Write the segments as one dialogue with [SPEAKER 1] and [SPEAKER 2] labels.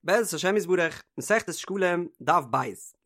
[SPEAKER 1] בעזרת השם יתברך, מסכת שקלים, דף ב'.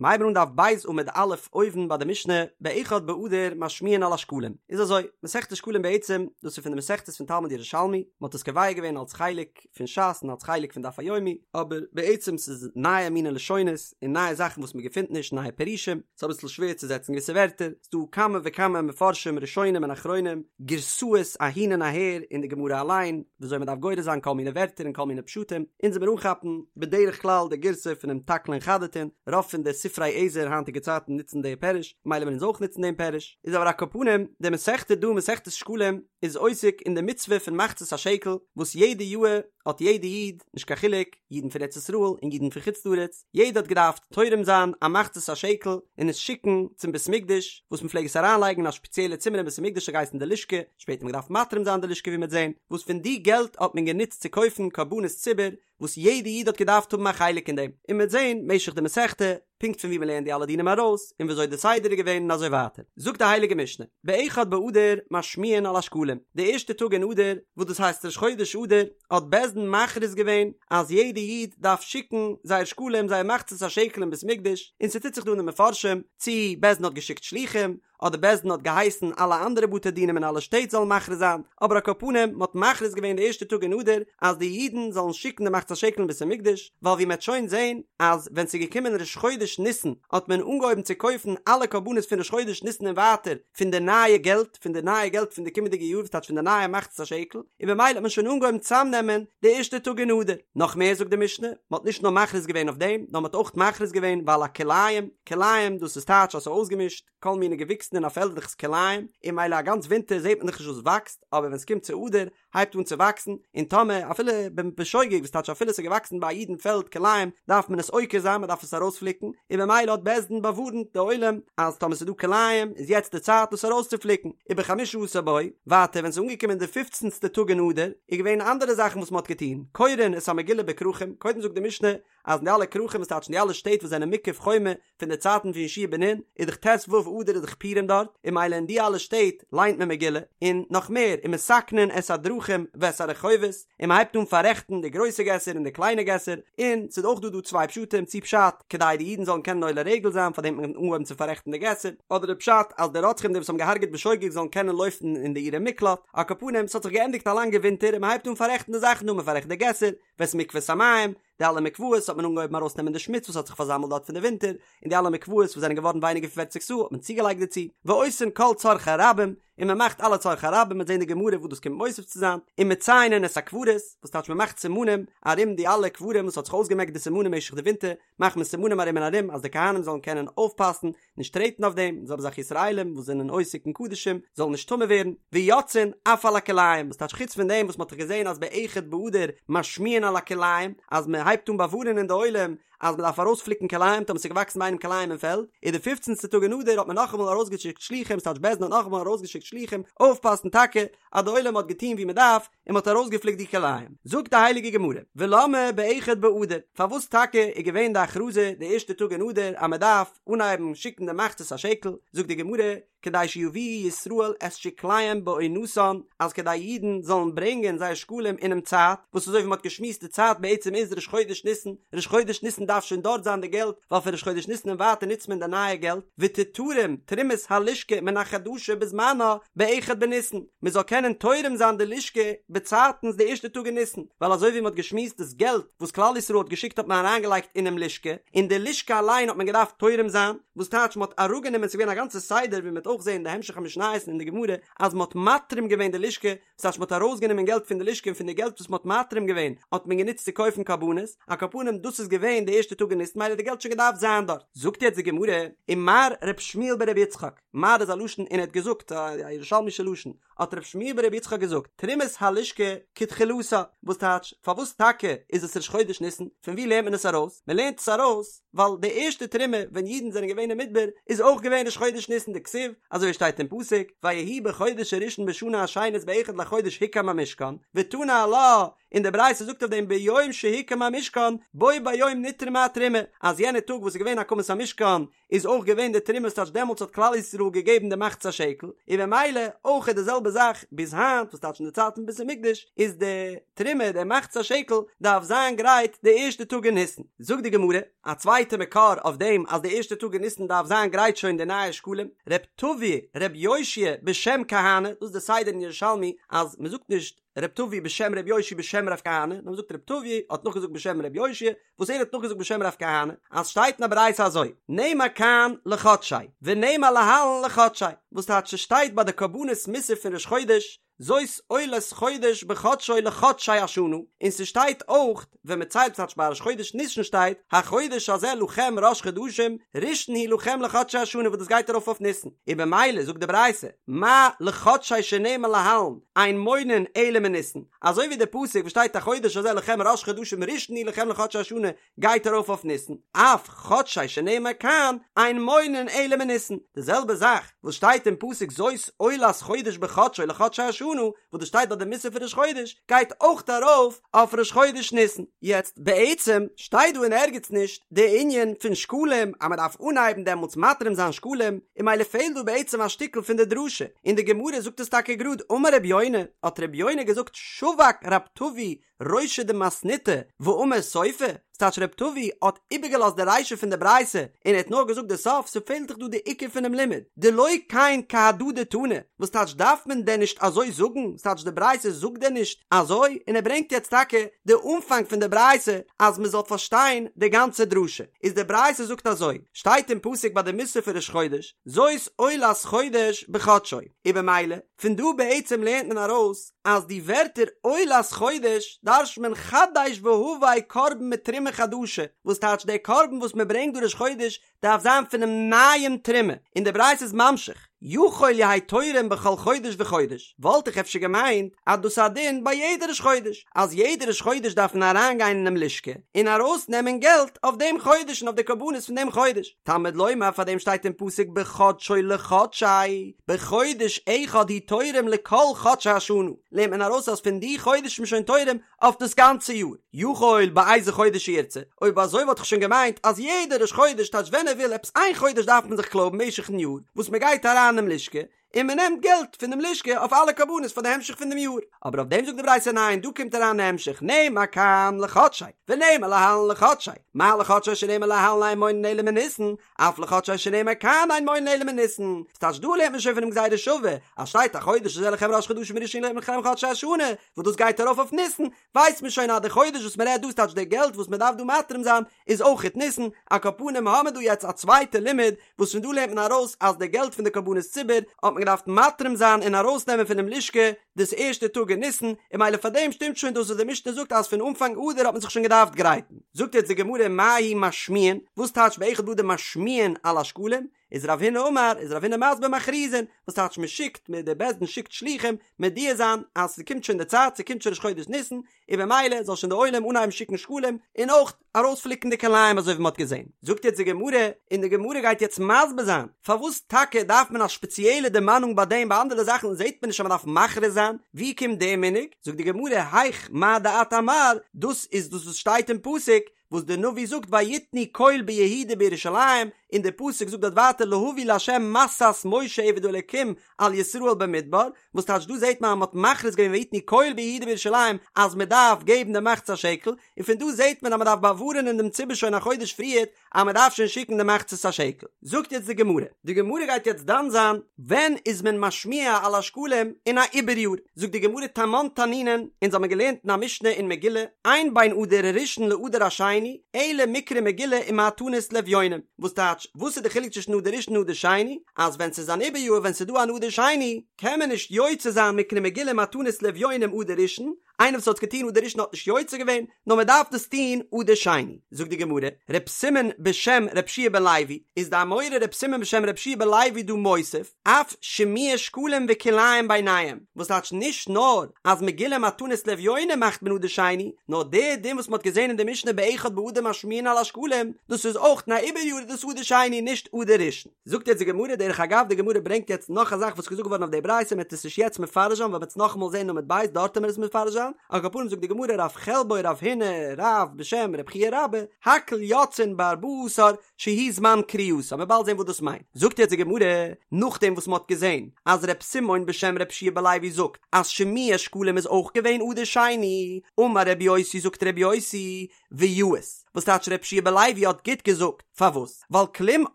[SPEAKER 1] מיר הייבן אן דף ב' עמוד א' אויבן ביי די משנה, באחד באדר משמיעין על השקלים. איז אזוי, מסכת שקלים בעצם, דאס איז פון די מסכתות פון תלמוד ירושלמי, מען האט עס קובע געווען אלס חלק פון ש"ס און אלס חלק פון דף היומי, אבער בעצם ס'איז נייע מיני לשונות און נייע זאכן וואס מען געפינט נישט, נייע פירושים, ס'איז אביסל שווער צו זעצן געוויסע ווערטער, ס'דא כמה וכמה מפרשים ראשונים און אחרונים, גירסאות אהין און אהער אין די גמרא אליין, וויאזוי מ'דארף גורס זיין כל מיני ווערטער און כל מיני פשטים, אונז וועמיר אנכאפן בדרך כלל די גירסא פונעם תקלין חדתין, רוב פון די ספרי עזר היינטיגע צייטן נוצן די פירוש, ממילא וועלן אונז אויך נוצן דעם פירוש, איז אבער על כל פנים, די מסכתא דא מסכת שקלים איז עוסק אין די מצוה פון מחצית השקל, וואס יעדע יאהר האט יעדע איד, נישט קיין חילוק, אידן פון ארץ ישראל און אידן פון חוץ לארץ, יעדער האט געדארפט תורם זיין א מחצית השקל און עס שיקן צום בית המקדש, וואס מען פלעג עס אריינלייגן אין א שפעציעלע צימער אין בית המקדש האט געהייסן די לשכה, שפעטער האט מען געדארפט מתרים זיין די לשכה ווי מ'וועט זען, וואס פון די געלט האט מען גענוצט צו קויפן קרבנות ציבור, וואס יעדע איד האט געדארפט האבן א חלק אין דעם, און מ'וועט זען משך די מסכתא, פונקט פון ווי מ'לערנט די אלע דינים ארויס, און וויאזוי די סדר איז געווען און אזוי ווייטער. זאגט די הייליגע משנה, באחד באדר משמיעין על השקלים, די ערשטע טאג אין אדר, וואס דאס הייסט ראש חודש אדר, האט בית דין מכריז געווען אז יעדע איד דארף שיקן זייער שקלים זייער מחצית השקל אין בית מקדש, און ס'טוט זיך דא אין די מפרשים צי בית דין האט געשיקט שלוחים, אדער בית דין האט געהייסן אלע אנדערע בתי דינים אין אלע שטעט זאלן מכריז זיין, אבער על כל פנים מ'האט מכריז געווען די ערשטע טאג אין אדר אז די אידן זאלן שיקן די מחצית השקל אין בית המקדש, ווייל ווי מ'עט שוין זען אז ווען ס'איז געקומען ראש חודש ניסן האט מען אנגעהויבן צו קויפן אלע קרבנות פון ראש חודש ניסן און ווייטער פון די נייע געלט, פון די נייע געלט פון די קומענדיגע יאר וואס טייטש פון די נייע מחצית השקל, און במילא האט מען שוין אנגעהויבן צאמנעמען די ערשטע טאג אין אדר. נאך מער זאגט די משנה, מ'האט נישט נאר מכריז געווען אויף דעם, נאר מ'האט אויך מכריז געווען ועל הכלאים, כלאים דאס איז טייטש אז ס'איז אויסגעמישט, כל מיני געוויקסן אין א פעלד דאך איז כלאים, און ממילא א גאנץ ווינטער זעט מען דאך נישט וואס וואקסט, אבער ווען ס'קומט צו אדר הייבט אן צו וואקסן, און טאמער אפילו בשוגג וואס טייטש אפילו ס'איז געוואקסן ביי א איד אין פעלד כלאים דארף מען עס עוקר זיין מ'דארף עס ארויספליקן, און במילא האט בית דין באווארנט די עולם אז טאמער ס'איז דא כלאים איז יעצט די צייט דאס ארויסצופליקן, ובחמשה עשר בו, ווייטער ווען ס'איז אנגעקומען די פופצנסטע טאג אין אדר איז געווען אנדערע זאכן וואס מ'האט געטון, קורין את המגילה בכרכים, קודם זאגט די משנה אז אין די אלע כרכים וואס טייטש אין די אלע שטעט וואס זענען מוקף חומה פון די צייטן פון יהושע בן נון איז דאך ט"ו אדר איז דאך פורים דארט און ממילא אין די אלע שטעט ליינט מען מגילה און נאך מער ומתקנין את הדרכים ואת הרחובות און מען הייבט אן פאררעכטן די גרויסע געסער און די קליינע געסער און ס'איז אויך דא דא צוויי פשטים צי פשט כדי די אידן זאלן קענען עולה רגל זיין פארדעם האט מען אנגעהויבן צו פאררעכטן די געסער אדער די פשט אז די רוצחים די וואס האבן געהארגעט בשוגג זאלן קענען לויפן אין די עירי מקלט על כל פנים ס'האט זיך געענדיגט א לאנגע ווינטער און מען הייבט אן פאררעכטן די זאכן דא מען פאררעכט די געסער ואת מקוואות המים, די אלע מקוואות האט מען אנגעהויבן ארויסנעמען די שמוץ וואס האט זיך פארזאמלט דארט פון די ווינטער, און די אלע מקוואות וואס זענען געווארן ווייניגער פון פערציג סאה האט מען צוגעלייגט דערצו, ועושין כל צרכי רבים, און מען מאכט אלע צרכי רבים, מ'וועט זען די גמרא וואס דאס קומט מוסיף צו זיין, ומציינין את הקברות, וואס טייטש מען מאכט סימנים ארום די אלע קברים וואס האט זיך אויסגעמעקט די סימנים משך די ווינטער, מאכט מען סימנים ארום און ארום אז די כהנים זאלן קענען אויפפאסן, נישט טרעטן אויף דעם, זעלבע זאך ישראלים וואס זענען עוסק אין קדשים זאלן נישט טמא ווערן, ויוצאין אף על הכלאים, וואס טייטש חוץ פון דעם וואס מען האט דאך געזען אז באחד באדר משמיעין על הכלאים, אז מען הייבט אן באווארענען די עולם אז מען דארף ארויספליקן כלאים טאמער ס'איז געוואקסן ביי איינעם כלאים אין פעלד, איז די פופצנסטע טאג אין אדר האט מען נאכאמאל ארויסגעשיקט שלוחים, ס'טייטש בית דין האט נאכאמאל ארויסגעשיקט שלוחים אויפפאסן טאקע אז די עולם האט געטון ווי מען דארף, און מ'האט ארויסגעפליקט די כלאים. זאגט די הייליגע גמרא, ולמה באחד באדר, פארוואס טאקע איז געווען די הכרזה די ערשטע טאג אין אדר אז מ'דארף אנהייבן שיקן די מחצית השקל, זאגט די גמרא, כדי שיביאו ישראל את שקליהם בעונתן, אז כדי אידן זאלן ברענגען זייער שקלים אינעם צייט, וואס אזוי ווי מ'האט געשמועסט די צייט בעצם איז ראש חודש ניסן, ראש חודש ניסן דארף שוין דארט זיין די געלט, ווייל פון ראש חודש ניסן און ווייטער נוצט מען די נייע געלט, ותתרם תרומת הלשכה מן החדשה בזמנה באחד בניסן, מען זאל קענען תורם זיין די לשכה באצייטנס די ערשטע טאג אין ניסן, ווייל אזוי ווי מען האט געשמועסט דאס געלט וואס כלל ישראל האט געשיקט האט מען אריינגעלייגט אינעם לשכה, און די לשכה אליין האט מען געדארפט תורם זיין, וואס טייטש מען האט אראפגענומען ס'איז געווען א גאנצע סדר ווי מען וועט אויך זען אין די המשך המשניות און אין די גמרא אז מען האט מתרים געווען די לשכה, וואס טייטש מען האט ארויסגענומען געלט פון די לשכה און פון די געלט וואס מען האט מתרים געווען האט מען גענוצט צו קויפן קרבנות, על כל פנים דאס איז געווען די ערשטע טאג אין ניסן מילא האט די געלט שוין געדארפט זיין דארט. זאגט יעצט די גמרא, ומר ר' שמואל ברבי יצחק, מר איז א לשון און ער האט געזאגט, א ירושלמישע לשון, האט ר' שמואל ברבי יצחק געזאגט, תרומת הלשכה כתחילתה, וואס טייטש, פארוואס טאקע איז עס ראש חודש ניסן, פון וואו לערנט מען עס ארויס? מען לערנט עס ארויס ווייל די ערשטע תרומה ווען אידן זענען געווען אין מדבר איז אויך געווען ראש חודש ניסן דכתיב, אזוי ווי שטייט אין פסוק, ויהי בחודש הראשון בשנה השנית באחד לחודש הוקם המשכן, ותנא עלה, און די ברייתא זאגט אויף דעם ביום שהוקם המשכן בו ביום נתרמה התרומה, אז יענע טאג וואס איז געווען הקמת המשכן איז אויך געווען די תרומה ס'טייטש דעמאלטס האט כלל ישראל געגעבן די מחצית השקל, און במילא אויך איז די זעלבע. זעלבע זאך ביז היינט וואס טייטש אין די צייט פון בית המקדש איז די תרומה די מחצית השקל דארף זיין גרייט די ערשטע טאג אין ניסן. זאגט די גמרא א צווייטע מקור אויף דעם אז די ערשטע טאג אין ניסן דארף זיין גרייט שוין די נייע שקלים, ר' טבי ר' יאשיה בשם כהנא, דאס איז די סדר אין ירושלמי אז מען זאגט נישט ר' טבי בשם ר' יאשיה בשם ר' כהנא, נאר מען זאגט ר' טבי האט נאכגעזאגט בשם ר' יאשיה וואס ער האט נאכגעזאגט בשם רב כהנא, אז שטייט אין א ברייתא אזוי, נאמר כאן לחדשי, ונאמר להלן לחדשי, וואס טייטש ס'שטייט ביי די קרבנות מוסף פון ראש חודש, זאת עולת חודש בחדשו לחדשי השנה, און ס'שטייט אויך ווען מ'ציילט ס'טייטש ביי ראש חודש ניסן שטייט, החודש הזה לכם ראש חדשים, ראשון הוא לכם לחדשי השנה וואס דאס גייט ארויף אויף ניסן, און במילא זאגט די ברייתא, מה לחדשי שנאמר להלן, אין מונין אלא מניסן, אזוי ווי די פסוק וואס שטייט החודש הזה לכם ראש חדשים ראשון הוא לכם לחדשי השנה גייט ארויף אויף ניסן, אף חדשי שנאמר כאן אין מונין אלא מניסן, די זעלבע זאך וואס שטייט אין פסוק זאת עולת חודש בחדשו לחדשי השנה וואס דאס שטייט ביי די מוסף פון ראש חודש גייט אויך ארויף אויף ראש חודש ניסן. יעצט בעצם שטייט דא אין ערגעץ נישט די ענין פון שקלים אז מען דארף אנהייבן דעמאלטס מתרים זיין שקלים, און ממילא פעלט דא בעצם א שטיקל פון די דרשה, און די גמרא זאגט עס טאקע גראד אמר רבי יונה, האט רבי יונה געזאגט שבק רב טבי רישא דמתניתא ואמר סופה, ס'טייטש רב טבי האט איבערגעלאזט די רישא פון די ברייתא און ער האט נאר געזאגט די סוף, ס'פעלט דאך דא די עיקר פונעם לימוד, דלא כן כהדא דתנא, וואס טייטש דארף מען דען נישט אזוי זאגן, ס'טייטש די ברייתא זאגט דען נישט אזוי, און ער ברענגט יעצט טאקע די אנפאנג פון די ברייתא אז מ'זאל פארשטיין די גאנצע דרשה, איז די ברייתא זאגט אזוי, שטייט אין פסוק ביי די מוסף פון ראש חודש, זאת עולת חודש בחדשו, און במילא, פון דא בעצם לערנט מען ארויס אז די ווערטער עולת חודש דרש'ט מען חדש והבא קרבן מתרומה חדשה, וואס טייטש דער קרבן וואס מען ברענגט דא ראש חודש דארף זיין פונעם נייעם תרומה, און די ברייתא איז ממשיך, יכול יהא תורם בכל חודש וחודש, וואלט איך אפשר געמיינט אז דאס איז א דין ביי יעדע ראש חודש, אז יעדע ראש חודש דארף מען אריינגיין אינעם לשכה און ארויסנעמען געלט אויף דעם חודש און אויף די קרבנות פון דעם חודש, תלמוד לומר פאר דעם שטייט אין פסוק בחדשו לחדשי, בחודש אחד הוא תורם לכל חדשי השנה, לערנט מען ארויס אז פון די חודש איז מען שוין תורם אויף דאס גאנצע יאר, יכול באיזה חודש שירצה, אויב אזוי וואלט איך שוין געמיינט אז יעדע ראש חודש טייטש ווען ער וויל עפעס איין חודש דארף מען זיך קלויבן משך'ן יאר וואס מען גייט אריין אינעם לשכה און מען נעמט געלט פון דעם לשכה אויף אלע קרבנות פאר די המשך פון דעם יאר, אבער אויף דעם זאגט די ברייתא ניין דא קומט אריין די המשך נאמר כאן לחדשי ונאמר להלן לחדשי, מה לחדשי שנאמר להלן אין מונין אלא מניסן, אף לחדשי שנאמר כאן אין מונין אלא מניסן, ס'טייטש דא לערנט מען שוין פונעם גזירה שווה, אז שטייט החודש הזה לכם ראש חדשים ראשון הוא לכם לחדשי השנה, וואס דאס גייט ארויף אויף ניסן, ווייסט מען שוין אז די חודש וואס מען רעדט דא ס'טייטש די געלט וואס מען דארף דא מתרים זיין איז אויכעט ניסן, על כל פנים האמער דא יעצט א צווייטע לימוד וואס פון דא לערנט מען ארויס אז די געלט פון די קרבנות ציבור האט מען געדארפט מתרים זיין און ארויסנעמען פונעם לשכה דאס ערשטע טאג אין ניסן, און ממילא פאר דעם שטימט שוין דאס וואס די משנה זאגט אז פון אנפאנג אדר האט מען זיך שוין געדארפט גרייטן. זאגט יעצט די גמרא מהו משמיעין, וואס טייטש באחד באדר משמיעין על השקלים? איז רב הונא אמר, איז רב הונא מסביר מכריזין, וואס טייטש מען שיקט, מען די בית דין שיקט שלוחים מודיע זיין אז ס'קומט שוין די צייט, ס'קומט שוין ראש חודש ניסן, און במילא זאל שוין די עולם אנהייבן שיקן שקלים, און אויך ארויספליקן די כלאים אזוי ווי מען האט געזען. זאגט יעצט די גמרא, און די גמרא גייט יעצט מסביר זיין, פארוואס טאקע דארף מען א שפעציעלע דערמאנונג ביי דעם, ביי אנדערע זאכן זעט מען נישט אז מען דארף מכריז זיין, ווי קומט דער מנהג? זאגט די גמרא, היך מה דאת אמר, דאס איז דאס וואס שטייט אין פסוק, וואס דער נביא זאגט ויתנו קול ביהודה ובירושלים, און דער פסוק זאגט דארט ווייטער להביא לה' משאת משה עבד האלקים על ישראל במדבר, וואס טייטש דא זעט מען אז מען האט מכריז געווען ויתנו קול ביהודה ובירושלים אז מען דארף געבן די מחצית השקל, און פון דא זעט מען אז מען דארף באווארענען דעם ציבור שוין א חודש פריערט אז מען דארף שוין שיקן די מחצית השקל. זאגט יעצט די גמרא, די גמרא גייט יעצט דן זיין ווען איז מען משמיע על השקלים אין א עיבור יאר, זאגט די גמרא תמן תנינן, אונז האבן געלערנט אין א משנה אין מגילה, אין בין אדר הראשון לאדר השני, אלא מקרא מגילה ומתנות לאביונים, וואס טייטש, וואס איז די חילוק צווישן אדר ראשון און אדר שני, אז ווען ס'איז אן עיבור יאר ווען ס'איז דא אן אדר שני, קען מען נישט יוצא זיין מקרא מגילה ומתנות לאביונים אדר ראשון, איינער וואס האט עס געטון אדר ראשון האט נישט יוצא געווען, נאר מען דארף דאס טון אדר שני. זאגט די גמרא, ר' סימון בשם ר' יהושע בן לוי, איז די אמורא ר' סימון בשם ר' יהושע בן לוי דא מוסיף, אף שמוע שקלים וכלאים ביניהם, וואס טייטש נישט נאר אז מגילה מתנות לאביונים מאכט מען אדר שני, נאר די דין וואס מען האט געזען אין די משנה באחד באדר משמיעין על השקלים, דאס איזאויך אין א עיבור יאר איז דאס אדר שני נישט אדר ראשון. זאגט יעצט די גמרא, דרך אגב די גמרא ברענגט יעצט נאך א זאך וואס איז געזאגט געווארן אויף די ברייתא מען וועט עס נישט יעצט מפרש זיין ווייל מען וועט עס נאכאמאל זען אין עמוד ב' דארט וועט מען עס מפרש זיין. זיין, על כל פנים זאגט די גמרא רב חלבו רב הונא רב בשם רב חייא רבה, הכל יוצאין בארבעה עשר שהוא זמן קריאתה, מ'וועט באלד זען וואס דאס מיינט. זאגט יעצט די גמרא, נאכדעם וואס מ'האט געזען אז ר' סימון בשם ר' יהושע בן לוי זאגט אז שמוע שקלים איז אויך געווען אדר שני, אמר ר' יוסי זאגט ר' יוסי, ויאות, וואס טייטש ר' יהושע בן לוי האט גוט געזאגט, פארוואס? ווייל כלום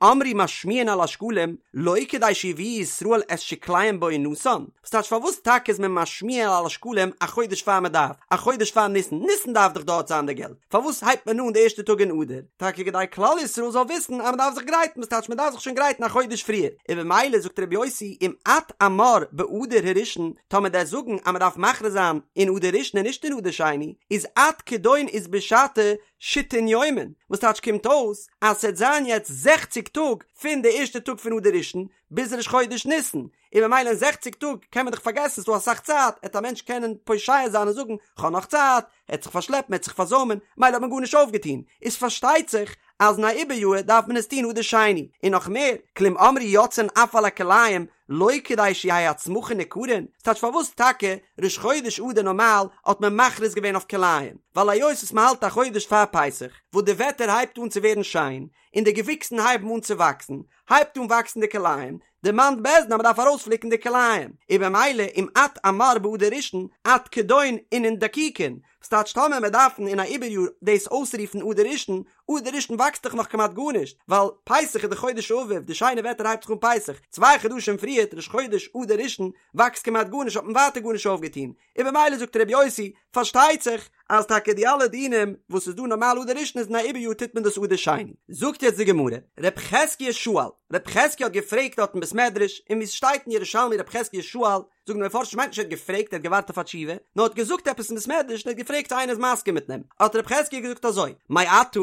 [SPEAKER 1] אמרו משמיעין על השקלים, לא כדי שיביאו ישראל את שקליהם בעונתן, וואס טייטש פארוואס טאקע איז מען משמיע על השקלים א חודש פאר מען דארף, א חודש פאר ניסן, ניסן דארף דאך דארט זיין די געלט, פארוואס הייבט מען אן די ערשטע טאג אין אדר? טאקע כדי כלל ישראל זאל וויסן אז מען דארף זיך גרייטן, וואס טייטש מען דארף זיך שוין גרייטן א חודש פריער, און במילא זאגט ר' יוסי אם את אמר באדר הראשון, טאמער דו'סט זאגן אז מען דארף מכריז זיין אין אדר ראשון און נישט אין אדר שני, איז עד כדון אית בשתא שיתין יומין, וואס טייטש קומט אויס אז ס'עט זיין יעצט זעכציג טאג פון די ערשטע טאג פון אדר ראשון ביז ראש חודש ניסן, און במילא אין זעכציג טאג קען מען דאך פארגעסן ס'דא אסאך צייט, עט א מענטש קענען פושע זיין און זאגן כ'האב נאך צייט, עט זיך פארשלעפן עט זיך פארזוימען, מילא האט מען גארנישט אויפגעטון, איז פארשטייט זיך אז אין א עיבור יאר דארף מען עס טון אדר שני, און נאך מער, כלום אמרו יוצאין אף על הכלאים לא כדי שיהא הצמחין ניכרין, ס'טייטש פארוואס טאקע ראש חודש אדר נארמאל האט מען מכריז געווען אויף כלאים, ווייל היות וואס מ'האלט א חודש פאר פסח, וואס די וועטער הייבט אן צו ווערן שיין, און די געוויקסן הייבן אן צו וואקסן, הייבט אן וואקסן די כלאים, דערמאנט בית דין אז מ'דארף ארויספליקן די כלאים, און במילא אם את אמר באדר ראשון עד כדון אינון דקיקין, ס'טייטש טאמער מיר דארפן אין א עיבור יאר דאס אויסרופן אדר ראשון, אדר ראשון וואקסט דאך נאך כמעט גארנישט, ווייל פסח איז די חודש האביב, די שיינע וועטער הייבט זיך אן פסח, צוויי חדשים פריערט ראש חודש אדר ראשון וואקסט כמעט גארנישט האט מען ווייטער גארנישט אויפגעטון, און במילא זאגט ר' יוסי, פארשטייט זיך אז טאקע די אלע דינים וואס איז דא נארמאל אדר ראשון איז אין א עיבור יאר טוט מען דאס אדר שני. זאגט יעצט די גמרא, ר' חזקיה שאל, ר' חזקיה האט געפרעגט דארט אין בית מדרש, און ווי עס שטייט אין ירושלמי ר' חזקיה שאל, זאגן די מפרשים מיינט נישט ער האט געפרעגט ער האט געווארט אויף א תשובה, נאר האט געזאגט עפעס אין בית מדרש און ער האט געפרעגט צו איינער איז מסכים מיט אים, האט ר' חזקיה געזאגט אזוי, מעתה,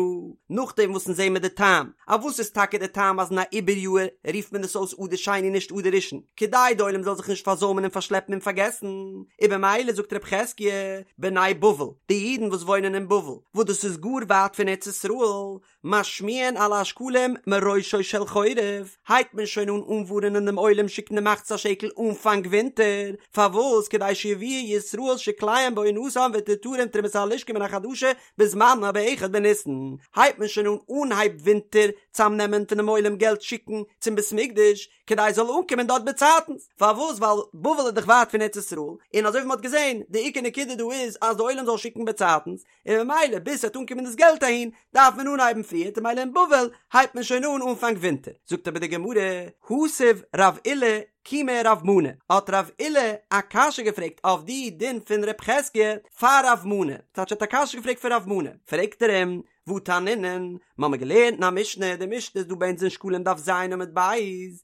[SPEAKER 1] נאכדעם וואס אונז זעהן מיר די טעם, א וואס איז טאקע די טעם אז אין א עיבור יאר רופט מען עס אויס אדר שני נישט אדר ראשון, כדי די עולם זאל זיך נישט פארזוימען און פארשלעפן און פארגעסן, און במילא זאגט ר' חזקיה, בני בבל, די אידן וואס וואוינען אין בבל, וואס דאס איז גאר ווייט פון ארץ ישראל, משמיעין על השקלים מראשו של חורף, הייבט מען שוין אן אנווארענען דעם עולם שיקן די מחצית השקל אנפאנג ווינטער, פארוואס כדי שיביאו ישראל שקליהם בעונתם ותתרם תרומת הלשכה מן החדשה בזמנה באחד בניסן, הייבט מען שוין אן אנהייב ווינטער צאמנעמען פונעם עולם געלט שיקן צום בית מקדש, כדי עס זאל אנקומען דארט באצייטנס, פארוואס ווייל בבל איז דאך ווייט פון ארץ ישראל, און אזוי ווי מען האט געזען, די עיקר נקודה דא איז אז די עולם זאל שיקן באצייטנס, און ממילא ביז ס'וועט אנקומען דאס געלט אהין דארף מען אנהייבן פריערט און ממילא אין בבל הייבט מען שוין אן אנפאנג ווינטער. זאגט אבער די גמרא, התיב רב עולא קומי רב מנא, האט רב עולא א קשיא געפרעגט אויף די דין פון רב חזקיה פאר רב מנא, ס'טייטש ער האט א קשיא געפרעגט פון רב מנא, פרעגט ער אים, והא תנינן, מ'האמיר געלערנט אין א משנה, די משנה איז דא ביי אונז אין שקלים דף ז עמוד ב',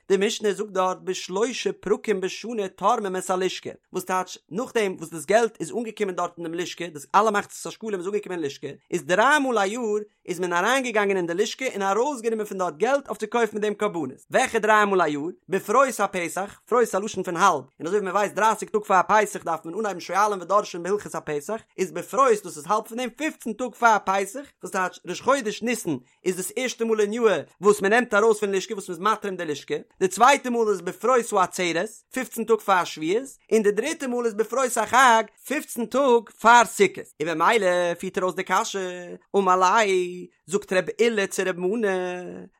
[SPEAKER 1] די משנה זאגט דארט בשלושה פרקים בשנה תורמים את הלשכה, וואס טייטש נאכדעם וואס דאס געלט איז אנגעקומען דארט אין דעם לשכה, דאס אלע מחצית השקלים איז אנגעקומען אין לשכה, איז דריי מאל א יאר איז מען אריינגעגאנגען אין די לשכה און ארויסגענומען פון דארט געלט אויף צו קויפן מיט דעם קרבנות, וועלכע דריי מאל א יאר? בפרוס הפסח, פרוס א לשון פון האלב, און אזוי ווי מען ווייסט דרייסיג טאג פאר פסח דארף מען אנהייבן שואלין ודורשין בהלכות הפסח, איז בפרוס דאס איז האלב פון דעם פופצן טאג פאר פסח, וואס טייטש ראש חודש ניסן איז דאס ערשטע מאל אין יאהר וואס מען נעמט ארויס פון לשכה וואס מען איז מתרים די לשכה, די צווייטע מאל איז בפרוס העצרת, פופצן טאג פאר שבועות, און די דריטע מאל איז בפרוס החג, פופצן טאג פאר סוכות, און במילא פירט ער אויס די קשיא, אמר ליה, זאגט רב עולא צו רב מנא,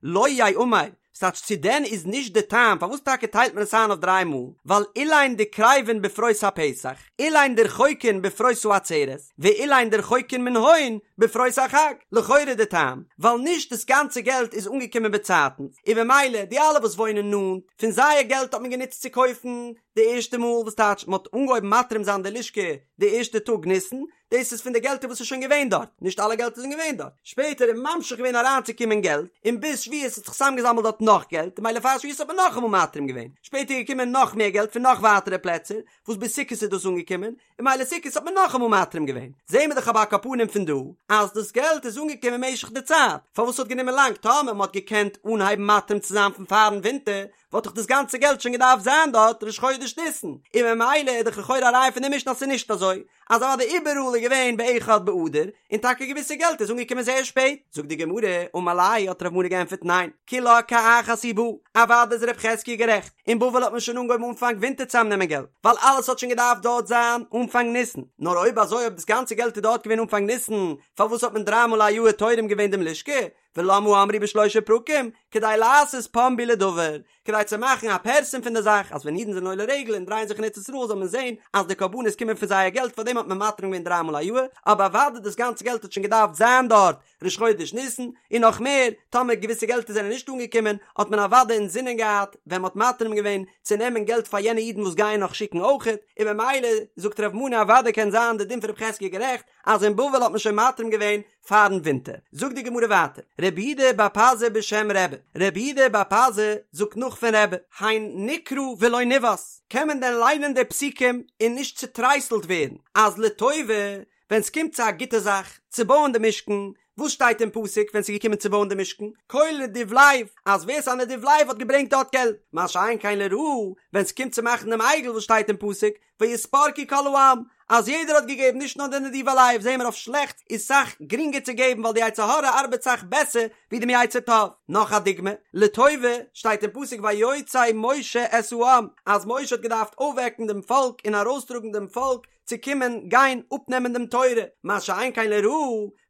[SPEAKER 1] לא ייאמר, ס'טייטש צו דען איז נישט די טעם פארוואס טאקע טיילט מען עס איין אויף דריי מאל, ווייל אלין דקריבין בפרוס הפסח, אלין דרחוקין בפרוס העצרת, ואלין דרחוקין מנהון בפרוס החג, לכאורה די טעם, ווייל נישט דאס גאנצע געלט איז אנגעקומען באצייטנס, און במילא די אלע וואס וואוינען נאנט, פון זייער געלט האט מען גענוצט צו קויפן די ערשטע מאל, וואס טייטש מען האט אנגעהויבן מתרים זיין די לשכה די ערשטע טאג ניסן, דאס איז פון די געלטער וואס איז שוין געווען דארט, נישט אלע געלטער זענען געווען דארט, שפעטער איז ממשיך געווען אריינצוקומען געלט, און ביז שבועות האט זיך צוזאמגעזאמלט דארט נאך געלט, ממילא פאר שבועות האט מען נאכאמאל מתרים געווען, שפעטער איז געקומען נאך מער געלט פון נאך ווייטערע פלעצער, וואס ביז סוכות איז דאס אנגעקומען, און ממילא סוכות האט מען נאכאמאל מתרים געווען. זעהן מיר דאך אבער על כל פנים פון דא, אז דאס געלט איז אנגעקומען משך די צייט, פארוואס האט גענומען לאנג, טאמער מען האט געקענט אנהייבן מתרים צו זיין פון פארן ווינטער, וואלט דאך דאס גאנצע געלט שוין געדארפט זיין דארט ראש חודש ניסן, און ממילא איז דאך לכאורה א ראיה פון די משנה אז ס'איז נישט אזוי, אז אוודאי איבעראל איז געווען באחד באדר, און טאקע געוויסע געלט איז אנגעקומען זייער שפעט. זאגט די גמרא, אמר ליה האט רב מנא געענטפערט ניין, כולה כאחת היא באה, אוודאי איז רב חזקיה גערעכט, אין בבל האט מען שוין אנגעהויבן אנפאנג ווינטער צוזאמנעמען געלט, ווייל אלעס האט שוין געדארפט דארט זיין אנפאנג ניסן, נאר אויב אזוי אויב דאס גאנצע געלט איז דארט געווען אנפאנג ניסן, פארוואס האט מען דריי מאל א יאהר תורם געווען דעם לשכה? ולמה אמרו בשלושה פרקים, כדי לעשות פומבי לדבר, כדי צו מאכן א פרסום פון די זאך, אז ווען אידן זענען עולה רגל און דרייען זיך אין ארץ ישראל זאל מען זען אז די קרבנות קומען פון זייער געלט, פארדעם האט מען מתרים געווען דריי מאל א יאהר, אבער אוודאי דאס גאנצע געלט האט שוין געדארפט זיין דארט ראש חודש ניסן, און נאך מער, טאמער געוויסע געלטער זענען נישט אנגעקומען, האט מען אוודאי אינזינען געהאט ווען מען האט מתרים געווען צו נעמען געלט פאר יענע אידן וואס גייען נאך שיקן אויכעט, און ממילא זאגט רב מנא אוודאי קען זיין די דין פון רב חזקיה גערעכט אז אין בבל האט מען שוין מתרים געווען פארן ווינטער. זאגט די גמרא ווייטער, רב יהודה בר פזי בשם רבי, רב יהודה בר פזי זאגט נאך פון רבי, הן נקרא ולא נבהת, קען מען דען ליינען די פסוקים און נישט צוטרייסלט ווערן אז לטובה ווען ס'קומט צו א גוטע זאך, צו בויען די משכן, וואס שטייט אין פסוק ווען ס'איז געקומען צו בויען די משכן? כל נדיב לב, אז ווער ס'איז א נדיב לב האט געברענגט דארט געלט, מה שאין כן לרעה, ווען ס'קומט צו מאכן דעם עגל וואס שטייט אין פסוק, ויתפרקו כל העם, אז יעדער האט געגעבן נישט נאר די נדיבי לב, זעהן מיר אויף שלעכטס איז סאך גרינגער צו געבן ווייל די יצר הרע ארבעט סאך בעסער ווי דעם יצר טוב. נאך א דוגמא, לטובה, שטייט אין פסוק ויוצא משה את העם, אז משה האט געדארפט אויפוועקן דעם פאלק און ארויסטראגן דעם פאלק צו קומען גיין אפנעמען דעם תורה, מה שאין כן לרעה,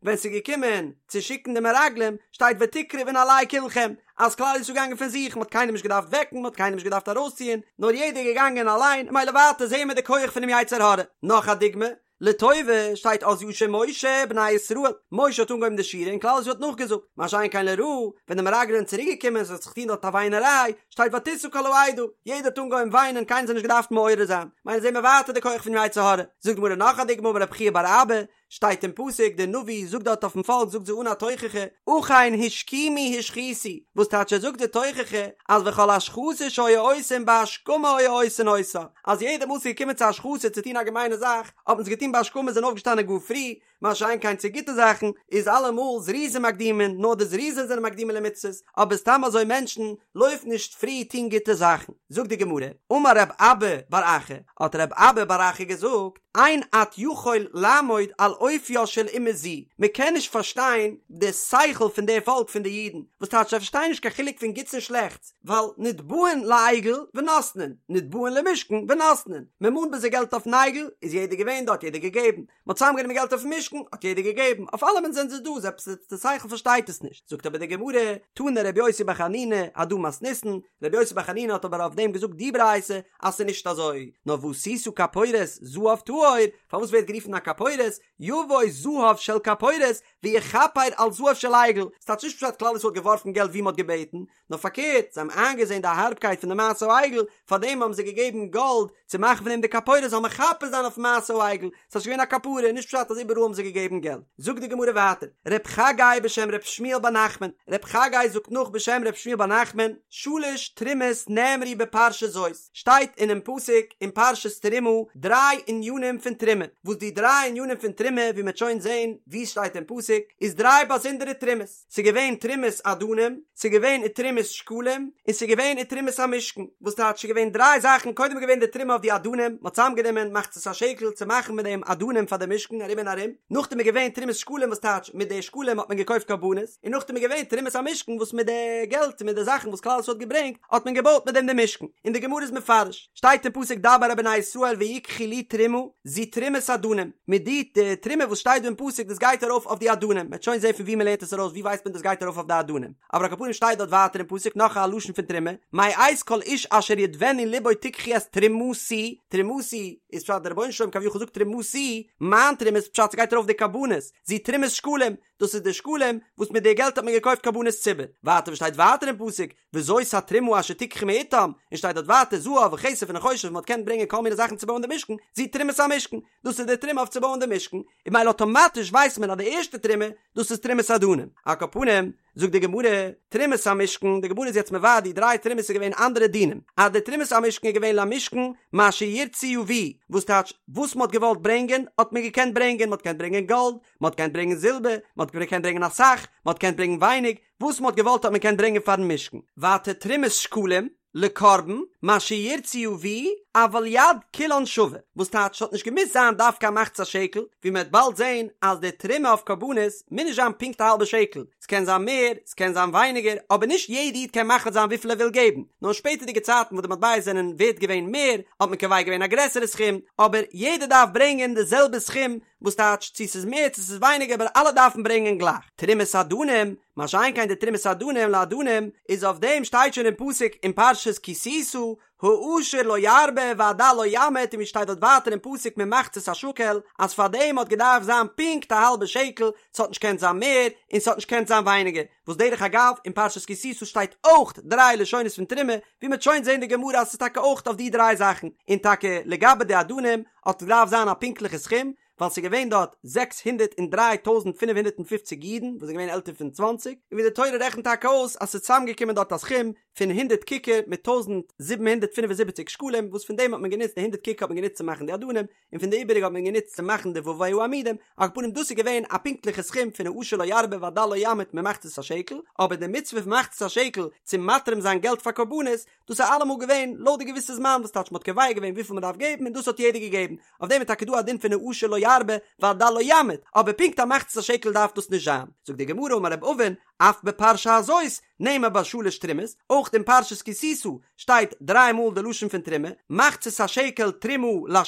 [SPEAKER 1] ווען ס'איז געקומען צו שיקן די מרגלים, שטייט ותקרבון עלי כלכם, אז כלל ישראל איז געגאנגען פון זיך, מ'האט קיינעם נישט געדארפט וועקן, מ'האט קיינעם נישט געדארפט ארויסציען, נאר יעדער איז געגאנגען אליין, ממילא ווייטער זעהן מיר די כח פונעם יצר הרע. נאך א דוגמא, לטובה, שטייט אז ישיר משה בני ישראל, משה האט אנגעהויבן די שירה און כלל ישראל האט נאכגעזאגט, מה שאין כן לרעה, ווען די מרגלים זענען צוריק געקומען, ס'האט זיך געטון דארט א וויינעריי, שטייט ותשא כל העדה, יעדער האט אנגעהויבן וויינען, קיינער זיך נישט געדארפט מעורר זיין, ממילא זעהן מיר ווייטער די כח פונעם יצר הרע. זאגט די גמרא נאך א דוגמא אמר רב חייא בר אבא, שטייט אין פסוק, דער נביא זאגט דארט אויפן פאלק זאגט זיי אן א תוכחה, אכן השכימו השחיתו, וואס טייטש ער זאגט די תוכחה אז וכל השחתה שהיו עושים בהשכמה היו עושין אותה, אז יעדע מאל ס'איז געקומען צו השחתה צו טון א געמיינע זאך, האט מען עס געטון בהשכמה זענען אויפגעשטאנען גאר פרי, מה שאין כן צו גוטע זאכן איז אלעמאל זריזין מקדימין, נאר די זריזין זענען מקדימין למצוות, אבער סתם אזוי מענטשן לויפן נישט פרי טון גוטע זאכן. זאגט די גמרא, אמר רב אבא בר אחא, האט רב אבא בר אחא געזאגט, אין את יכול לעמוד על אופיה של אומה זו, מען קען נישט פארשטיין די שכל פון די פאלק פון די אידן, וואס טייטש זיי פארשטייען נישט קיין חילוק פון גוטס און שלעכטס, ווייל נתבעין לעגל ונותנין, נתבעין למשכן ונותנין, מען מאנט ביי זיי געלט אויפן עגל, איז יעדער געווען דארט יעדער געגעבן, מען האט צוזאמגענומען געלט אויפן משכן, האט יעדער געגעבן, אויף אלעמען זענען זיי דא, איז עפעס די שכל פארשטייט עס נישט, זאגט אבער די גמרא, תנא רבי יוסי בר חנינא, הדא מתניתין, רבי יוסי בר חנינא האט אבער אויף דעם געזאגט די ברייתא אז ס'איז נישט אזוי, נאר ועשית כפורת זהב טהור, פארוואס ווערט גערופן א כפורת, יבוא זהב של כפורת ויכפר על זהב של עגל, ס'טייטש נישט פשט כלל ישראל האט געווארפן געלט ווי מ'האט געבעטן, נאר פארקערט, זיי האבן איינגעזען די הארבקייט פון די מעשה העגל, פארדעם האבן זיי געגעבן גאלד צו מאכן פון דעם די כפורת זאל מכפר זיין אויפן מעשה העגל, ס'איז געווען א כפרה, נישט פשט אז איבעראל האבן זיי געגעבן געלט. זאגט די גמרא ווייטער, ר' חגי בשם ר' שמואל בר נחמן, ר' חגי זאגט נאך בשם ר' שמואל בר נחמן, שלש תרומות נאמרו בפרשה זאת, שטייט אינעם פסוק אין פרשת תרומה דריי ענינים פון תרומה, וואס די דריי ענינים פון תרומה ווי מ'וועט שוין זען ווי עס שטייט אין פסוק, איז דריי באזונדערע תרומות. ס'איז געווען תרומת אדנים, ס'איז געווען ותרומת שקלים, און ס'איז געווען ותרומת המשכן, וואס טייטש ס'איז געווען דריי זאכן, קודם איז געווען די תרומה אויף די אדנים, מ'האט צוזאמגענומען מחצית השקל צו מאכן מיט דעם אדנים פאר די משכן ארום און ארום, נאכדעם איז געווען תרומת שקלים וואס טייטש מיט די שקלים האט מען געקויפט קרבנות, און נאכדעם איז געווען תרומת המשכן וואס מיט די געלט און מיט די זאכן וואס כלל ישראל האט געברענגט האט מען געבויט מיט דעם די משכן, און די גמרא איז מפרש, שטייט אין פסוק דבר אל בני ישראל ויקחו לי תרומה, זו תרומת אדנים, מיט די די תרומה וואס שטייט דא אין פסוק דאס גייט ארויף אויף די אדנים, מ'וועט שוין זען פון ווי מ'לערנט עס ארויס ווי ווייסט מען דאס גייט ארויף אויף די אדנים, אבער על כל פנים שטייט דארט ווייטער אין פסוק נאך א לשון פון תרומה, מאת כל איש אשר ידבנו לבו תקחו את תרומתי, תרומתי איז פשט דער רבונו של עולם כביכול זאגט תרומתי, מיין תרומה איז פשט ס'גייט ארויף די קרבנות, זו תרומת שקלים, דאס איז די שקלים וואס מיט די געלט האט מען געקויפט קרבנות ציבור, ווייטער וואס שטייט ווייטער אין פסוק, וזאת התרומה אשר תקחו מאתם, און שטייט דארט ווייטער זהב וכסף ונחושת וואס מען האט געקענט ברענגען כל מיני זאכן צו בויען די משכן, זו תרומת המשכן, דאס איז די תרומה אויף צו בויען די משכן, און ממילא אטאמאטיש ווייסט מען אז די ערשטע תרומה, דאס איז תרומת אדנים. על כל פנים, זאגט די גמרא, תרומת המשכן, די גמרא איז יעצט מבאר די דריי תרומות איז געווען אנדערע דינים, אז די תרומת המשכן איז געווען למשכן מה שירצו יביאו, וואס טייטש, וואס מען האט געוואלט ברענגען האט מען געקענט ברענגען, מען האט געקענט ברענגען גאלד, מען האט געקענט ברענגען זילבער, מען האט געקענט ברענגען אסאך, מען האט געקענט ברענגען ווייניג, וואס מען האט געוואלט האט מען געקענט ברענגען פארן משכן. ווייטער תרומת שקלים, לקרבן, מה שירצו יביאו, אבל יד כולן שווה, וואס טייטש ס'האט נישט געמוזט זיין דווקא א מחצית השקל, ווי מ'וועט באלד זען אז די תרומה אויף קרבנות מוז נישט זיין פונקט א האלבע שקל, ס'קען זיין מער, ס'קען זיין ווייניגער, אבער נישט יעדע איד קען מחליט זיין וויפיל ער וויל געבן, נאר אין שפעטערדיגע צייטן וואס די מטבעות זענען ווערט געווען מער, האט מען קובע געווען א גרעסערע סכום, אבער יעדער דארף ברענגען די זעלבע סכום, וואס טייטש צו ס'איז מער צו ס'איז ווייניגער אבער אלע דארפן ברענגען גלייך. תרומת אדנים, מה שאין כן די תרומת אדנים לאדנים, איז אויף דעם שטייט שוין אין פסוק אין פרשת כי תשא, העשיר לא ירבה והדל לא ימעיט און ווי שטייט דארט ווייטער אין פסוק ממחצית השקל אז פאר דעם האט געדארפט זיין פונקט א האלבע שקל, ס'האט נישט געקענט זיין מער און ס'האט נישט געקענט זיין ווייניגער, וואס דרך אגב אין פרשת כי תשא שטייט אויך דריי לשונות פון תרומה, ווי מ'וועט שוין זען די גמרא אז ס'איז טאקע אויך אויף די דריי זאכן, און טאקע לגבי די אדנים האט געדארפט זיין א פונקטליכע סכום, ווייל ס'איז געווען דארט 603,550 אידן וואס זענען געווען עלטער פון צוואנציג, און ווי די תורה רעכנט טאקע אויס אז ס'איז צוזאמגעקומען דארט א סכום פון הונדערט ככר מיט 1,775 שקלים, וואס פון דעם האט מען גענוצט די הונדערט ככר האט מען גענוצט צו מאכן די אדנים, און פון די איבעריגע האט מען גענוצט צו מאכן די ווי העמודים, על כל פנים דאס איז געווען א פונקטליכע סכום פון העשיר לא ירבה והדל לא ימעיט ממחצית השקל, אבער די מצוה פון מחצית השקל צו מתרים זיין געלט פאר קרבנות, דאס איז אלעמאל געווען לויט די געוויסע זמן וואס טייטש מ'האט קובע געווען וויפיל מ'דארף געבן און דאס האט יעדער געגעבן, אויף דעם איז טאקע דא א דין פון העשיר לא ירבה והדל לא ימעיט, אבער פונקט א מחצית השקל דארף דאס נישט זיין. זאגט די גמרא אמר רב אבין, אף בפרשה הזאת נאמר בה שלש תרומות, אויך אין פרשת כי תשא שטייט דריי מאל די לשון פון תרומה, מחצית השקל תרומה לה',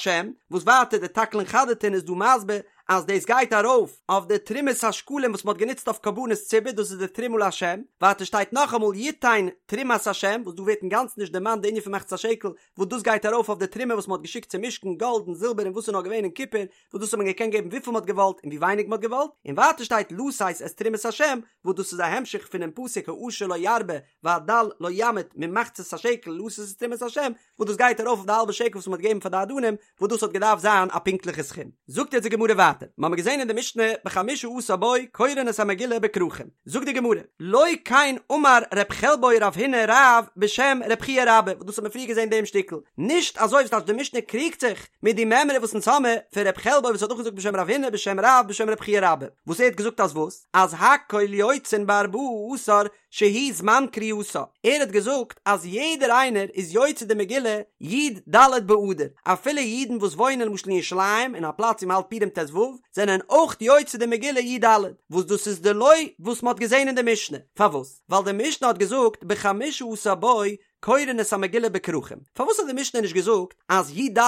[SPEAKER 1] וואס ווייטער די תקלין חדתין איז דא מסביר אז דאס גייט ארויף אויף די תרומת השקלים וואס מען האט גענוצט אויף קרבנות ציבור דאס איז די תרומה לה', ווייטער שטייט נאכאמאל יתן תרומת ה' וואס דא ווערט אינגאנצן נישט דערמאנט די ענין פון מחצית השקל וואס דאס גייט ארויף אויף די תרומה וואס מען האט געשיקט צום משכן גאלד און זילבער און וואס איז נאר געווען און קופער וואס דאס האט מען געקענט געבן וויפיל מען האט געוואלט און ווי ווייניג מען האט געוואלט, און ווייטער שטייט לתת את תרומת השם וואס דאס איז א המשך פונעם פסוק העשיר לא ירבה והדל לא ימעיט ממחצית השקל לתת את תרומת השם וואס דאס גייט ארויף אויף די האלבע שקל וואס מען האט געגעבן פאר די אדנים וואס דאס האט געדארפט זיין א פונקטליכע סכום. זאגט יעצט די גמרא ווייטער, מ'האמיר געזען אין די משנה בחמשה עשר בו קורין את המגילה בכרכים, זאגט די גמרא, לא כן אמר ר' חלבו רב הונא רב בשם ר' חייא רבה, וואס דאס האט מען פריער געזען דעם שטיקל, נישט אזוי וואס טייטש די משנה קריגט זיך מיט די מימרא וואס אונז האמיר פון ר' חלבו וואס האט נאכגעזאגט בשם רב הונא בשם רב בשם ר' חייא רבה, וואס ער האט געזאגט אז וואס? אז הכל יוצאין בארבעה עשר שהוא זמן קריאתה, ער האט געזאגט אז יעדער איינער איז יוצא די מגילה י ד באדר, אפילו אידן וואס וואוינען למשל אין ירושלים אין א פלאץ ווי מ'האלט פורים ט ו, זענען אויך יוצא די מגילה י ד, וואס דאס איז דלא וואס מ'האט געזען אין די משנה, פארוואס? ווייל די משנה האט געזאגט בחמשה עשר בו קורין את המגילה בכרכים, פארוואס האט די משנה נישט געזאגט אז י ד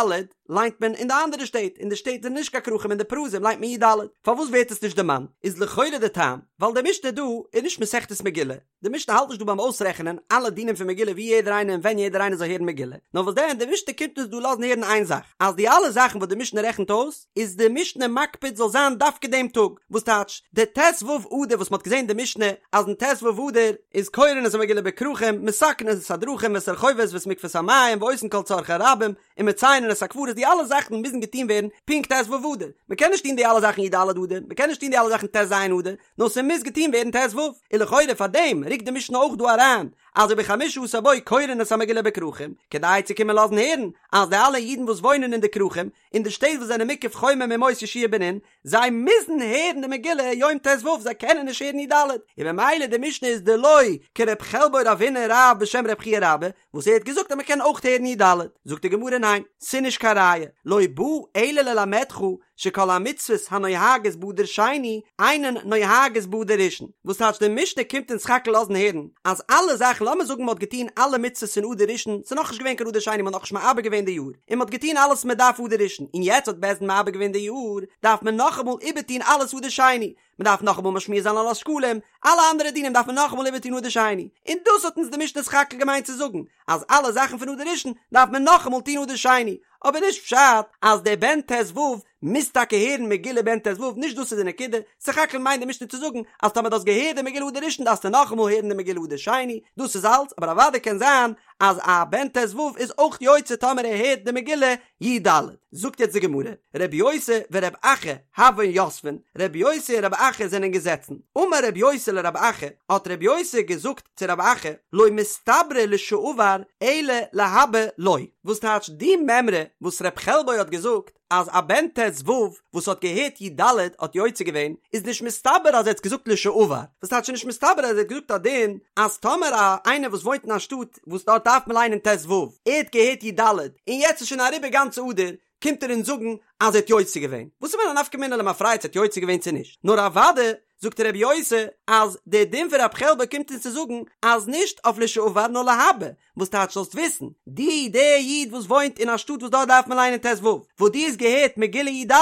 [SPEAKER 1] ליינט מען אין די אנדערע שטעט, אין די שטעט זענען נישט קיין כרכים אין די פרזים ליינט מען י ד, פארוואס ווערט עס נישט דערמאנט? איז לכאורה די טעם ווייל די משנה דא איז נישט מסכת מגילה, די משנה האלט נישט דא ביים אויסרעכענען אלע דינים פון מגילה ווי יעדער איינער און ווען יעדער איינער זאל הערן מגילה, נאר וואס דען די משנה קומט אונז דא לאזן הערן איין זאך, אז די אלע זאכן וואס די משנה רעכנט אויס, איז די משנה מקפיד זאל זיין דווקא דעם טאג, וואס טייטש די ט ו אדר וואס מ'האט געזען די משנה אז אין ט ו אדר איז קורין את המגילה בכרכים, מתקנין את הדרכים ואת הרחובות ואת מקוואות המים ועושין כל צרכי הרבים, ומציינין את הקברות די אלע זאכן מוזן געטון ווערן פונקט ט ו אדר, מ'קען נישט טון די אלע זאכן י ד אדר, מ'קען נישט טון די אלע זאכן ט ז אדר, נאר ס'מוז געטון ווערן ט ו, און לכאורה פאר דעם רוקט די משנה אויך דא אריין אז ובחמשה עשר בו קורין את המגילה בכרכים, כדי צו קומען לאזן הערן אז די אלע אידן וואס וואוינען אין די כרכים, אין די שטעט וואס זענען מוקף חומה מימות יהושע בן נון, זיי מוזן הערן די מגילה יום ט ו, זיי קענען נישט הערן י ד, און ממילא די משנה איז דלא כר' חלבו רב הונא רב בשם ר' חייא רבה, וואס ער האט געזאגט אז מען קען אויך הערן י ד, זאגט די גמרא ניין, ס'נישט קיין ראיה, לא בא אלא ללמדך שכל המצוות הנוהגות באדר שני אינן נוהגות באדר ראשון, וואס טייטש די משנה קומט אונז סך הכל לאזן הערן אז אלע זאכן לאמיר זאגן מען האט געטון אלע מצוות אין אדר ראשון ס'איז נאכנישט געווען קיין אדר שני מען האט נאכנישט מעבר געווען די יאר און מען האט געטון אלעס מען דארף אדר ראשון און יעצט האט בית דין מעבר געווען די יאר דארף מען נאכאמאל איבערטון אלעס אדר שני מען דארף נאכאמאל משמיע זיין על השקלים אלע אנדערע דינים דארף מען נאכאמאל איבערטון אדר שני און דאס האט אונז די משנה סך הכל געמיינט צו זאגן אז אלע זאכן פון אדר ראשון דארף מען נאכאמאל טון אדר שני אבער נישט פשט אז דער בן ט ו מוז טאקע הערן מגילה בן ט ו, נישט דאס איז די נקודה, סך הכל מיינט די משנה צו זאגן אז טאמער דו האסט געהערט די מגילה אדר ראשון דארפסטו נאכאמאל הערן די מגילה אדר שני, דאס איז אלץ, אבער אוודאי קען זיין אז א בן ט ו איז אויך יוצא טאמער ער הערט די מגילה י ד. זאגט יעצט די גמרא, רבי יוסי ורבי אחא הוון יתבין, רבי יוסי און רבי אחא זענען געזעצן, אמר רבי יוסי לרבי אחא, האט רבי יוסי געזאגט צו רבי אחא, לא מסתברא לשעבר אלא להבא לא. וואס טייטש די מימרא וואס ר' חלבו האט געזאגט אז א בן ט ו וואס האט געהערט י ד האט יוצא געווען איז נישט מסתבר אז ער האט געזאגט לשעבר, וואס טייטש נישט מסתבר אז ער האט געזאגט א דין אז טאמער א איינער וואס וואוינט אין א שטאט וואס דארט דארף מען ליינען ט ו ער האט געהערט י ד און יעצט איז שוין אריבער גאנץ אדר קומט ער אונז זאגן אז ער האט יוצא געווען, וואס איז מיר א נפקא מינה למפרע צו ער האט יוצא געווען צו נישט, נאר אוודאי זאגט רבי יוסי אז דער דין פון רב חלבו קומט אונז צו זאגן אז נישט אויף לשעבר נאר להבא, וואס טייטש זאלסט וויסן, דו דער איד וואס וואוינט אין א שטאט וואס דארט דארף מען ליינען ט ו, וואס דו האסט געהערט מגילה י ד,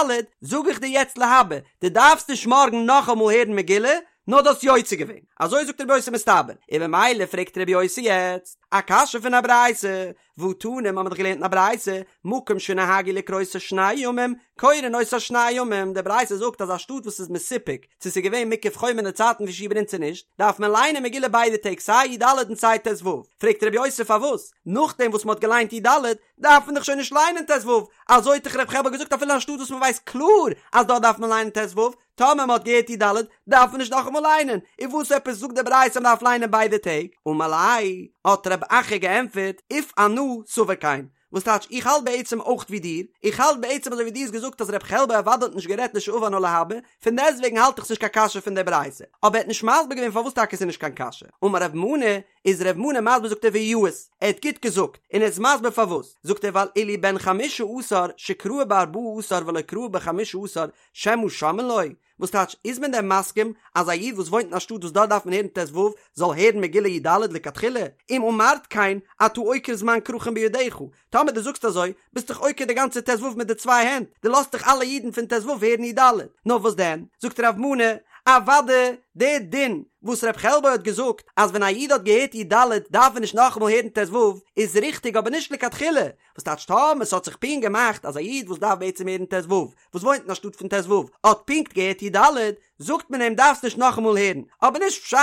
[SPEAKER 1] זאג איך דיר יעצט להבא, דו דארפסט נישט מארגן נאכאמאל הערן מגילה, נאר דו האסט יוצא געווען. אזוי זאגט רבי יוסי מסתבר, און ממילא פרעגט רבי יוסי יעצט א קשיא פון א ברייתא, והתנא, מ'האמיר דאך געלערנט אין א ברייתא, מקום שנהגו לקרותו שני ימים, קורין אותה שני ימים, די ברייתא זאגט אז א שטאט וואס איז מסופק צו ס'איז געווען מוקף חומה אין די צייטן פון יהושע בן נון צו נישט, דארף מען ליינען מגילה ביידע טעג סיי י ד און סיי ט ו. פרעגט ר' יוסי פארוואס נאכדעם וואס מ'האט געליינט י ד דארף מען דאך שוין נישט ליינען ט ו, אזוי האט דאך ר' חלבו געזאגט אפילו אין א שטאט וואס מ'ווייסט קלאר אז דארט דארף מען ליינען ט ו, טאמער מ'האט געהערט י ד דארף מען נישט נאכאמאל ליינען, און וואס עפעס זאגט די ברייתא מ'דארף ליינען ביידע טעג? אמר ליה, האט רב אחא געענטפערט, אוף אנא סבר כן, וואס טייטש איך האלט בעצם אויך ווי דיר, איך האלט בעצם אזוי ווי דו האסט געזאגט אז רב חלבו אוודאי האט נישט גערעדט לשעבר נאר להבא, פון דעסטוועגן האלט איך ס'נישט קיין קשיא פון די ברייתא, אבער ער האט נישט מסביר געווען פארוואס טאקע ס'איז נישט קיין קשיא. אמר רב מנא, איז רב מנא מסביר זאגט ער ויאות, ער האט גוט געזאגט, און ער איז מסביר פארוואס, זאגט ער ווייל אילו בן חמשה עשר שקרא בארבעה עשר ולא קרא בחמשה עשר שמא שומעין לו, וואס טייטש, איז מען דען מסכים אז א איד וואס וואוינט אין א שטאט וואס דארט דארף מען הערן ט ו זאל הערן מגילה י ד לכתחילה? אם אמרת כן אתה עוקר זמן כרכין בידך, טאמער דו זאגסט אזוי, ביסט דאך עוקר די גאנצע ט ו מיט די צוויי הענט, דו לאזט דאך אלע אידן פון ט ו הערן י ד. נאר וואס דען, זאגט רב מנא, אוודאי דער דין וואס רב חלבו האט געזאגט אז ווען א איד האט געהערט י ד דארף ער נישט נאכאמאל הערן ט ו איז ריכטיג אבער נישט לכתחילה, וואס טייטש טאמער ס'האט זיך פונקט געמאכט אז א איד וואס דארף בעצם הערן ט ו וואס וואוינט אין א שטאט פון ט ו האט פונקט געהערט י ד, זאגט מען אים דארפסט נישט נאכאמאל הערן, אבער נישט פשט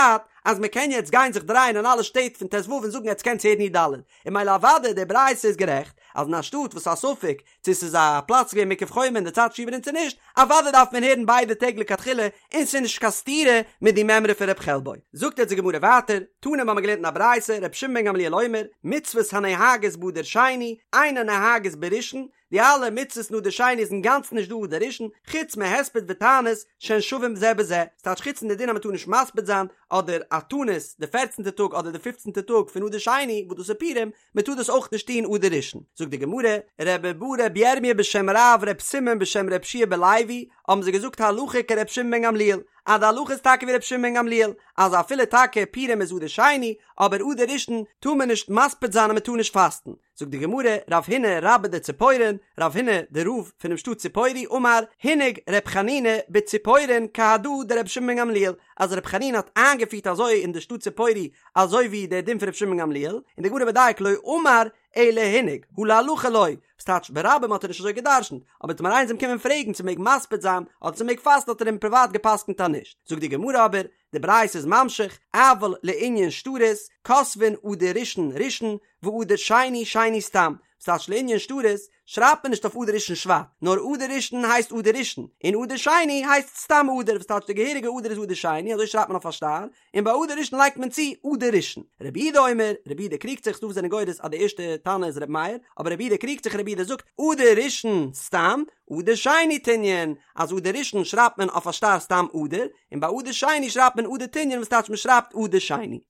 [SPEAKER 1] אז מען קען יעצט גיין זיך דרייען אין אלע שטעט פון ט ו און זאגן עטס קענטס הערן י ד, און ממילא אוודאי די ברייתא איז גערעכט אז אין א שטאט וואס איז א ספק צו ס'איז א פלאץ געווען מוקף חומה אין די צייט יהושע בן נון צו נישט, אוודאי דארף מען הערן ביידע טעג לכתחילה און ס'איז נישט קיין סתירה מיט די מימרא פון ר' חלבו. זאגט יעצט די גמרא ווייטער, תנא מ'האמיר געלערנט אין א ברייתא, ר' שמעון בן גמליאל אומר, מצוות הנוהגות באדר שני, אינן נוהגות בראשון, די אלע מצוות אין אדר שני איז אינגאנצן נישט דא אדר ראשון, חוץ מהספד ותענית שהן שווים זה בזה, ס'טייטש חוץ פון די דין אז מ'טאר נישט מספיד זיין, אדער א תענית די פערצנטע טאג אדער די פופצנטע טאג פון אדר שני וואס דאס איז פורים, מ'טאר דאס אויך נישט טון אדר ראשון. זאגט די גמרא, רבי בר רבי ירמיה בשם רב רב סימון בשם רבי יהושע בן לוי, האבן זיי געזאגט הלכה כרבי שמעון בן גמליאל, אז די הלכה איז טאקע ווי רבי שמעון בן גמליאל, אז אפילו טאקע פורים איז אדר שני, אבער אדר ראשון טאר מען נישט מספיד זיין און מ'טאר נישט פאסטן. זאגט די גמרא, רב הונא רבה דציפורין, רב הונא דער רב פונעם שטאט ציפורי אמר, הנהיג ר' חנינא בציפורין כהדא דרבי שמעון בן גמליאל, אז ר' חנינא האט איינגעפירט אזוי אין די שטאט ציפורי אזוי ווי דער דין פון רבי שמעון בן גמליאל, און די גמרא מדייק לא אמר אלא הנהיג, הא להלכה לא, וואס טייטש ברבים האט ער נישט אזוי גע'דרש'נט, אבער טאמער איינער איז אים קומען פרעגן צו מ'מעג מספיד זיין אדער צו מ'מעג פאסטן האט ער אים פריוואט גע'פסק'נט אז נישט, זאגט די גמרא אבער, די ברייתא איז ממשיך, אבל לענין שטרות, כותבין אדר ראשון ראשון, ואדר שני שני סתם, וואס טייטש לענין שטרות, שרייבט מען נישט אויף אדר ראשון שבט, נאר אדר ראשון הייסט אדר ראשון, און אדר שני הייסט סתם אדר, וואס טייטש די געהעריגע אדר איז אדר שני, אזוי שרייבט מען אויף א שטר, און ביי אדר ראשון לייגט מען צו אדר ראשון. רבי יהודה אומר, רבי יהודה קריגט זיך, ס'דא וואס זענען גורס אז די ערשטע תנא איז רבי מאיר, אבער רבי יהודה קריגט זיך, רבי יהודה זאגט, אדר ראשון סתם, אדר שני תנין, אז אדר ראשון שרייבט מען אויף א שטר סתם אדר, און ביי אדר שני שרייבט מען אדר תנין וואס טייטש מען שרייבט אדר שני.